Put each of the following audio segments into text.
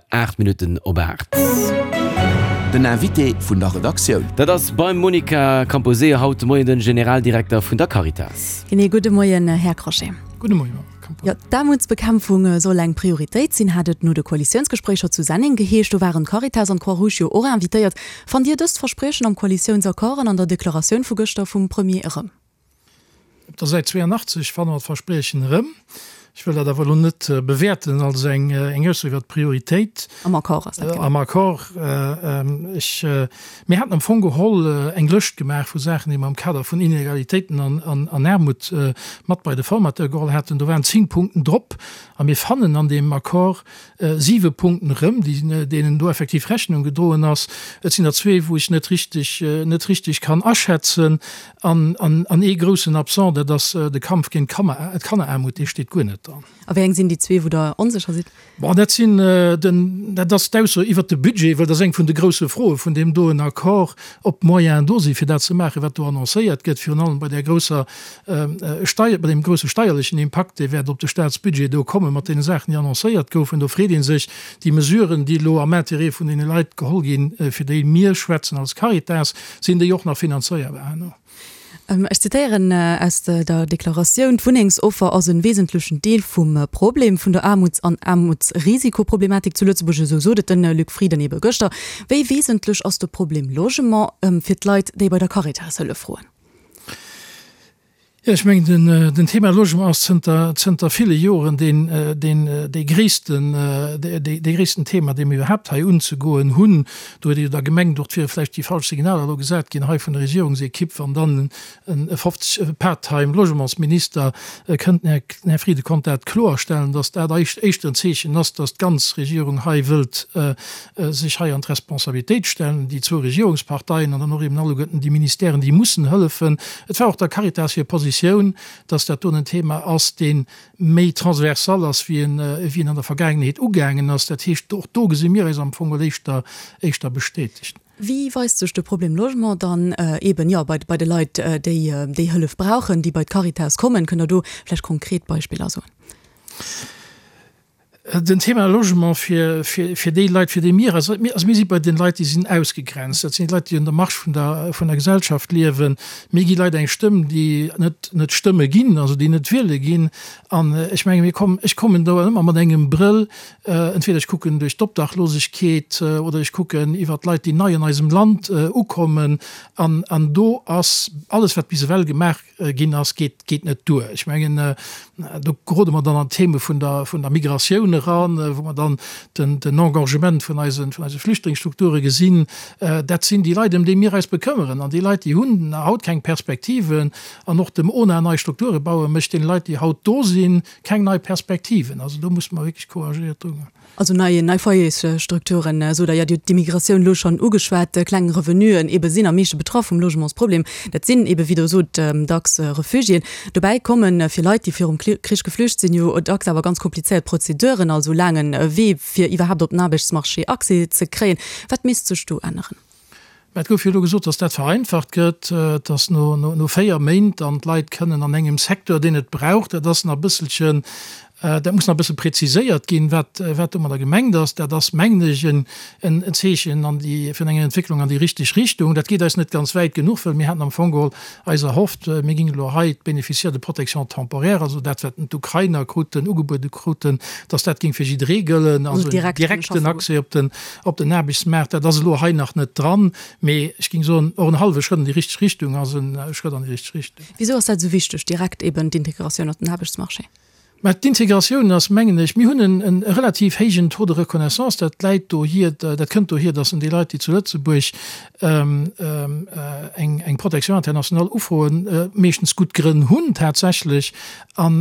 8 Minutten op 8. Den Invité vun der Redaktioun. Dat ass beim Monica Camposeo haut de Moien den Generaldirekter vun der Caritas. Genee, gudde Moien Här Crochet. Gudde Moien Madame Camposeo. Jo, d'Aarmutsbekämpfung soll eng Prioritéit sinn, hat et no de Koalitiounsgespréicher zu Senneng geheescht. Do waren d'Caritas an d'Croix-Rouge jo och invitéiert. Fannt Dir dëst Verspriechen am Koalitiounsaccord an an der Deklaratioun vu gëschter vum Premier erëm? Op der Säit 82 fanne mer d'Verspriechen erëm. Ech wëll dat awer elo net bewäerten als eng Ausso iwwer d'Prioritéit. Am Accord ass dat, genau. Am Accord. Ech, mir haten am Fong geholl eng Lëscht gemaach vu Saachen, déi mer am Kader vun Inegalitéiten an Aarmut mat bei de Formateur geholl haten. Do waren 10 Punkten drop a mir fannen an deem Accord siwe Punkten erëm, deenen do effektiv Rechnung gedroen ass. Et sinn der zwee, wou ech net richtig, net richtig kann aschätzen. An, an, an ee groussen Absent, dat ass de Kampf géint d'Kanneraarmut, dee steet guer net dran. A wéi eng sinn déi zwee, wou Der onsécher sidd? Bon, dat sinn den, dat ass d'Ausso iwwert de Budget, well dat ass eng vun de grousse Froe vun deem doen Accord, ob d'Moyenen do sinn, fir dat ze maachen, wat do annoncéiert gëtt, virun allem bei där grousser Steier, bei deem grousse steierlechen Impakt, dee wäert op de Staatsbudget do komme mat deene Saachen, déi annoncéiert goufen. Do freet ee sech, déi Mesuren, déi elo am Intérêt vun deene Leit geholl ginn, fir déi mir schwätzen als Caritas, sinn déi och nach finanzéierbar herno? Ech zitéieren aus der Deklaratioun, D'Wunnengsoffer ass e wesentlechen Deel vum Problem vun der Aarmuts an Aarmutsrisikoproblematik zu Lëtzebuerg, esou sot et de Luc Frieden ebe gëschter. Wéi wesentlech ass de Problem Logement fir d'Leit, déi bei der Caritas Hëllef froen? Jo, ech mengen, den Thema Logement ass zënter, zënter ville Joren deen, deen, dee gréissten, dee gréissten Thema, dee mir iwwerhaapt hei unzegoen hunn. Do huet ee jo da gemengt, och et wiere vläicht déi falsch Signaler elo gesat ginn hei vun der Regierungsekipp, wann dann e 50, e part-time Logementsminister kënnt. Den Här Frieden konnt dat kloerstellen, datt dat éischter en Zeechen ass, datt d'ganz Regierung hei wëllt sech hei an d'Responsabilitéit stellen, déi zwou Regierungsparteien an dann och eben alleguerten déi Ministèren, déi mussen hëllefen. Et war och der Caritas hir Positioun, dass dat doen en Thema ass, dee méi transversal ass, wéi en, wéi en an der Vergaangenheet ugaangen ass. Dat heescht, och do gesi mir eis am Fong geholl éischter, éischter bestätegt. Wéi weist sech de Problem Logement dann eben, jo, bei, bei de Leit, déi, déi Hëllef brauchen, déi bei d'Caritas kommen? Kënnt Der do vläicht konkret Beispiller soen? Den Thema Logement fir, fir, fir déi Leit, fir déi mir, also mir, also mir si bei den Leit, déi sinn ausgegrenzt. Dat sinn déi Leit, déi un der Marge vun der, vun der Gesellschaft liewen. Mir gi Leit eng Stëmm, déi net, net stëmme ginn, also déi net wiele ginn. An ech menge mir kommen, ech kommen do ëmmer mat engem Brëll, entweder ech kucken duerch d'Obdachlosegkeet oder ech kucken iwwer d'Leit, déi nei an eisem Land ukommen. An, an do ass alles, wat bis ewell gemaach ginn ass, geet, geet net duer. Ech mengen, do gerode mer dann an d'Theme vun der, vun der Migratioun eran, wou mer dann den, den Engorgement vun eisen, vun eise Flüchtlingsstrukture gesinn. Dat sinn déi Leit, ëm déi mir eis bekëmmeren. An déi Leit, déi hunn haut keng Perspektiven. An och dem ona nei Strukture bauen, mécht deene Leit, déi haut do sinn, keng nei Perspektiven. Also do musse mer wierklech couragéiert drugoen. Also nei, nei Foyersstrukturen, sot Der. Jo, Dir hutt d'Immigratioun elo schonn ugeschwat. Kleng Revenuen ebe sinn am meeschte betraff vum Logementsproblem. Dat sinn ebe, wéi Der sot, dacks Refugiéen. Dobäi komme fir Leit, déi virum Krich geflücht sinn, jo dacks awer ganz komplizéiert Prozeduren, also laange Wee, fir iwwerhaapt op den Aarbechtsmarché Accès ze kréien. Wat misst sech do änneren? Mä et gouf jo elo gesot, datt dat vereinfacht gëtt, datt no 4 Méint dann d'Leit kënnen an engem Secteur, deen et brauch, dat ass nach e bësselchen, dat muss nach e bësse präziséiert ginn, wat wat domadder gemengt ass. Dat ass, mengen ech, en Zeechen an déi, vun enger Entwécklung an déi richteg Richtung. Dat geet eis net ganz wäit genuch, well mir haten am Fong geholl eis erhofft, mir géingen elo hei d'Bénéficiaires de protection temporaire, also dat wat d'Ukrainer kruten, ugebuede kruten, datt dat géing fir jidderee gëllen, also en direkten Accès op den Op den Aarbechtsmaart, dat ass elo hei nach net dran, mee ech géing soen, och en hallwe Schrëtt an déi richteg Richtung ass e Schrëtt an déi richteg Richtung. Wisou ass dat esou wichteg, direkt eben d'Integratioun op den Aarbechtsmarché? Mä d'Integratioun ass, mengen ech, mir hunn e relativ héijen Taux de reconnaissance, dat läit dohier, dat kënnt dohier, datt en déi Leit, déi zu Lëtzebuerg eng Protection internationale ufroen, meeschtens gutt Grënn hunn tatsächlech. An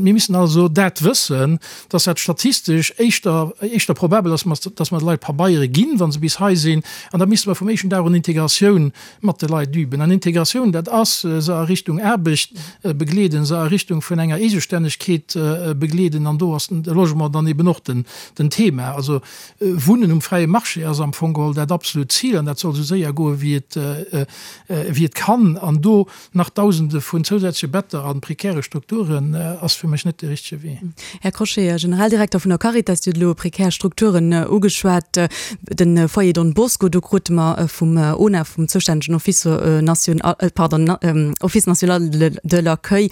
mir müssen also dat wëssen, dass dat statistesch éischter, éischter probabel ass, dass mer de Leit Pabeiere ginn, wa se bis hei sinn. An da misste mer vum éischten Dag un Integratioun mat de Leit üben. An Integratioun, dat ass, se a Richtung Aarbecht begleeden, se a Richtung vun enger Eegestännegkeet. Mobilitéit begleeden an do ass de Logement dann eben och den Thema. Also Wunnen um fräie Marché ass am Fong geholl dat absolut Zil an dat soll esou séier goe wéi et wéi et kann. An do nach Dausende vun zousätzleche Better a prekäre Strukturen ass fir mech net de richtege Wee. Här Crochet, Generaldirekter vun der Caritas, Dir hutt elo prekär Strukturen ugeschwat. De Foyer Don Bosco, do krute mer vum ONA, vum zoustännegen Office national, pardon, Office national de l'accueil,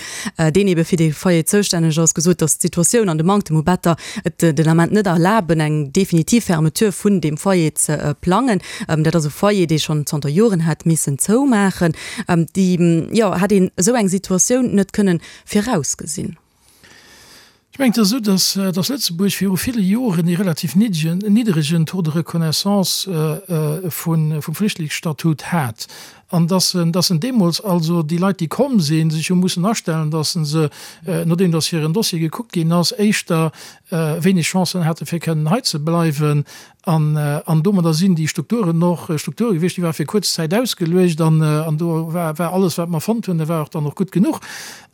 deen ebe fir dee Foyer zoustänneg ass, gesot, datt d'Situatioun an de Manktem u Better et den Ament net erlaben, eng definitiv Fermeture vun deem Foyer ze plangen. Dat ass e Foyer, dee schonn zanter Joren hätt missen zoumaachen. Déi, jo, hätt een esou eng Situatioun net kënnen virausgesinn? Ech mengen, et ass esou, datt, datt Lëtzebuerg viru ville Joren ee relativ niddegen, niddregen Taux de reconnaissance vun, vum Flüchtlingsstatut hat an datt en, datt en deemools also déi Leit, déi komm sinn, sech hu mussen astellen, datt se se, nodeem datt hiren Dossier gekuckt ginn ass, éischter wéineg Chancen hate fir kënnen hei ze bleiwen. An, an domadder sinn déi Strukturen och Strukture gewiescht, déi ware fir kuerz Zäit ausgeluecht an, an do war, war alles, wat mer fonnt hunn, dat war och dann och gutt genuch.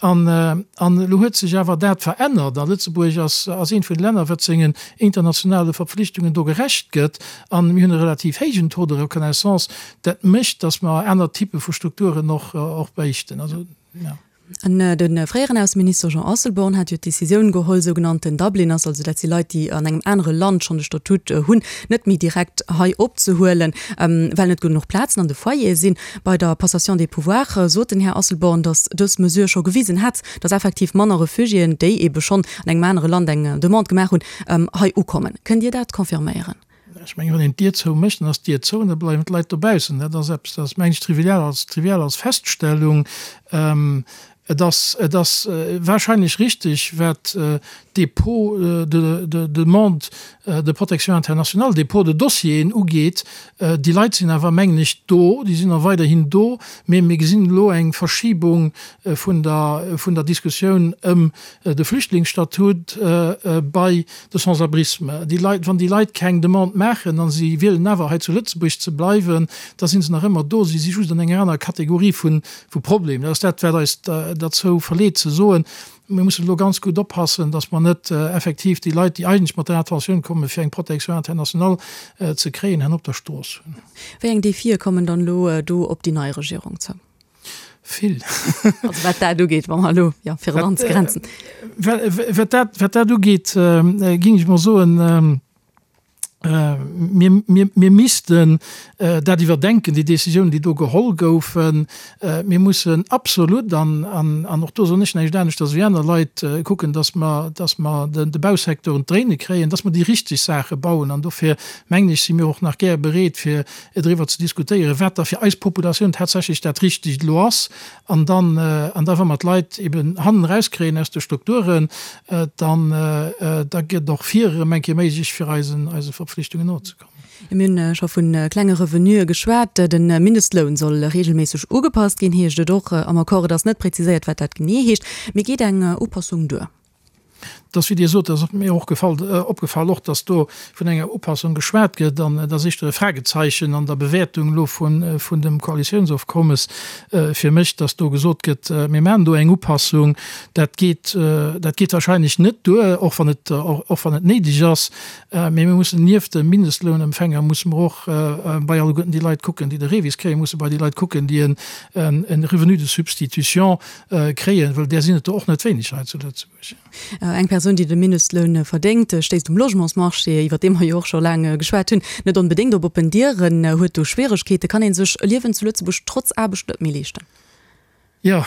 An, an elo huet sech awer dat verännert a Lëtzebuerg ass, ass eent vun de Länner, wat sengen internationale Verpflichtungen do gerecht gëtt. An mir hunn e relativ héijen Taux de reconnaissance. Dat mécht, datt mer aner Typpe vu Strukturen och, och bréichten. Also, ja. An de fréieren Ausseminister Jean Asselborn hat jo d'Decisioun geholl, sougenannten Dubliners, also dat si Leit, déi an engem anere Land schonn de Statut hunn, net méi direkt hei opzehuelen, well net genuch Plazen an de Foyere sinn. Bei der Passation des pouvoirs sot den Här Asselborn, datt dës Mesure scho gewisen hätt, datt effektiv manner Refugiéen, déi eebe schonn an engem anere Land eng Demande gemaach hunn, hei ukommen. Kënnt Dir dat confirméieren? Ech mengen, wann een d'Dier zou mécht, dann ass d'Dier zou an da bleiwen d'Leit dobaussen. Dat ass eppes, dat ass, mengen ech, trivial als, trivial als Feststellung. Et ass, et ass wahrscheinlech richtig, wat d'Dépôts de, de Demande de protection internationale, Dépôt de Dossieren ugeet. Déi Leit sinn awer, mengen ech, do, déi sinn och weiderhin do, mee mir gesinn elo eng Verschibung vun der, vun der Diskussioun ëm de Flüchtlingsstatut bei de Sans-abrisme. Déi Leit, wann déi Leit keng Demande maachen a si wielen awer hei zu Lëtzebuerg ze bleiwen, da si se nach ëmmer do. Si si just an enger anerer Kategorie vu Problem. Dat ass dat, wat eis derzou verleet ze soen, mir mussen elo ganz gutt oppassen, datt mer net effektiv déi Leit, déi eigentlech mat der Intentioun kommen, fir eng Protection internationale ze kréien, herno op der Strooss hunn. Wéi eng Defie kommen dann elo do op déi nei Regierung zou? Vill. Also wat dat ugeet, wa mer elo, jo, fir et anzegrenzen. Wat dat, wat dat ugeet, géing ech mol soen, mir, mir, mir missten dat iwwerdenken, déi Décisionen, déi do geholl goufen. Mir mussen absolut, an, an, an och do soen ech näischt aneschters wéi aner Leit, kucken, dass mer, dass mer de, de Bausecteur un d'Dréine kréien, dass mer déi richteg Saache bauen. An dofir, mengen ech, si mir och nach gär bereet, fir driwwer ze diskutéieren, wat da fir eis Populatioun tatsächlech dat Richtegt elo ass. An dann, an da wa mer d'Leit eben hannen erauskréien aus de Strukturen, dann, da gëtt och vir erëm eng Kéier méiglech, fir eisen, eise Verpflichtungen nozekommen. Mir hunn scho vu klenge Revenuë geschwat. De Mindestloun soll reegelméisseg ugepasst ginn, heescht et och am Accord. Et ass net präziséiert, wat dat genee heescht. Mee geet eng Upassung duer? Et ass, wéi Dir sot, dat ass mir och gefall, opgefall och, dass do vun enger Upassung geschwat gëtt. An et ass éischter e Fragezeichen an der Bewäertung elo vun, vun dem Koalitiounsofkommes fir mech, dass do gesot gëtt, mir maachen do eng Upassung. Dat geet, dat geet wahrscheinlech net duer, och wann et, och wann et néideg ass. Mee mir mussen nieft de Mindestlounempfänger musse mer och bei alleguerten déi Leit kucken, déi de REVIS kréien, musse bei déi Leit kucken, déi en, en Revenu de substitution kréien, well där sinn et der och net wéineg hei zu Lëtzebuerg. Eng Persoun, déi de Mindestloun verdéngt, stéisst um Logementsmarché, iwwer dee mer jo och scho laang geschwat hunn, net onbedéngt op oppen Dieren, huet do Schwieregkeeten. Kann ee sech e Liewen zu Lëtzebuerg trotz Aarbecht net méi leeschten? Jo,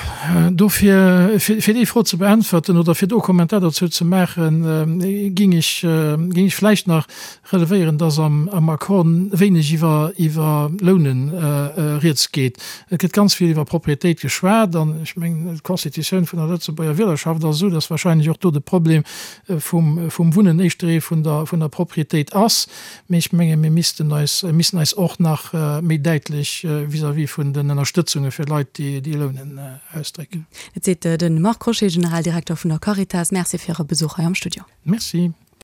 dofir, fir déi Fro ze beäntwerten oder fir do e Kommentar dozou ze maachen, géing ech, géing ech vläicht nach relevéieren, dass am Accord wéineg iwwer iwwer Lounen rieds geet. Et gëtt ganz vill iwwer Propriétéit geschwat an ech mengen, d'Constitutioun vun der Lëtzebuerger Wielerschaft ass esou, dass wahrscheinlech och do de Problem vum vum Wunnen éischter ee vun der vun der Propriétéit ass. Mee ech menge mir missten eis missten eis och nach méi däitlech vis-à-vis vun den Ënnerstëtzunge fir Leit, déi déi lounen, ausdrécken. Dat seet de Marc Crochet, Generaldirekter vun der Caritas. Merci fir Äre Besuch hei am Studio. Merci.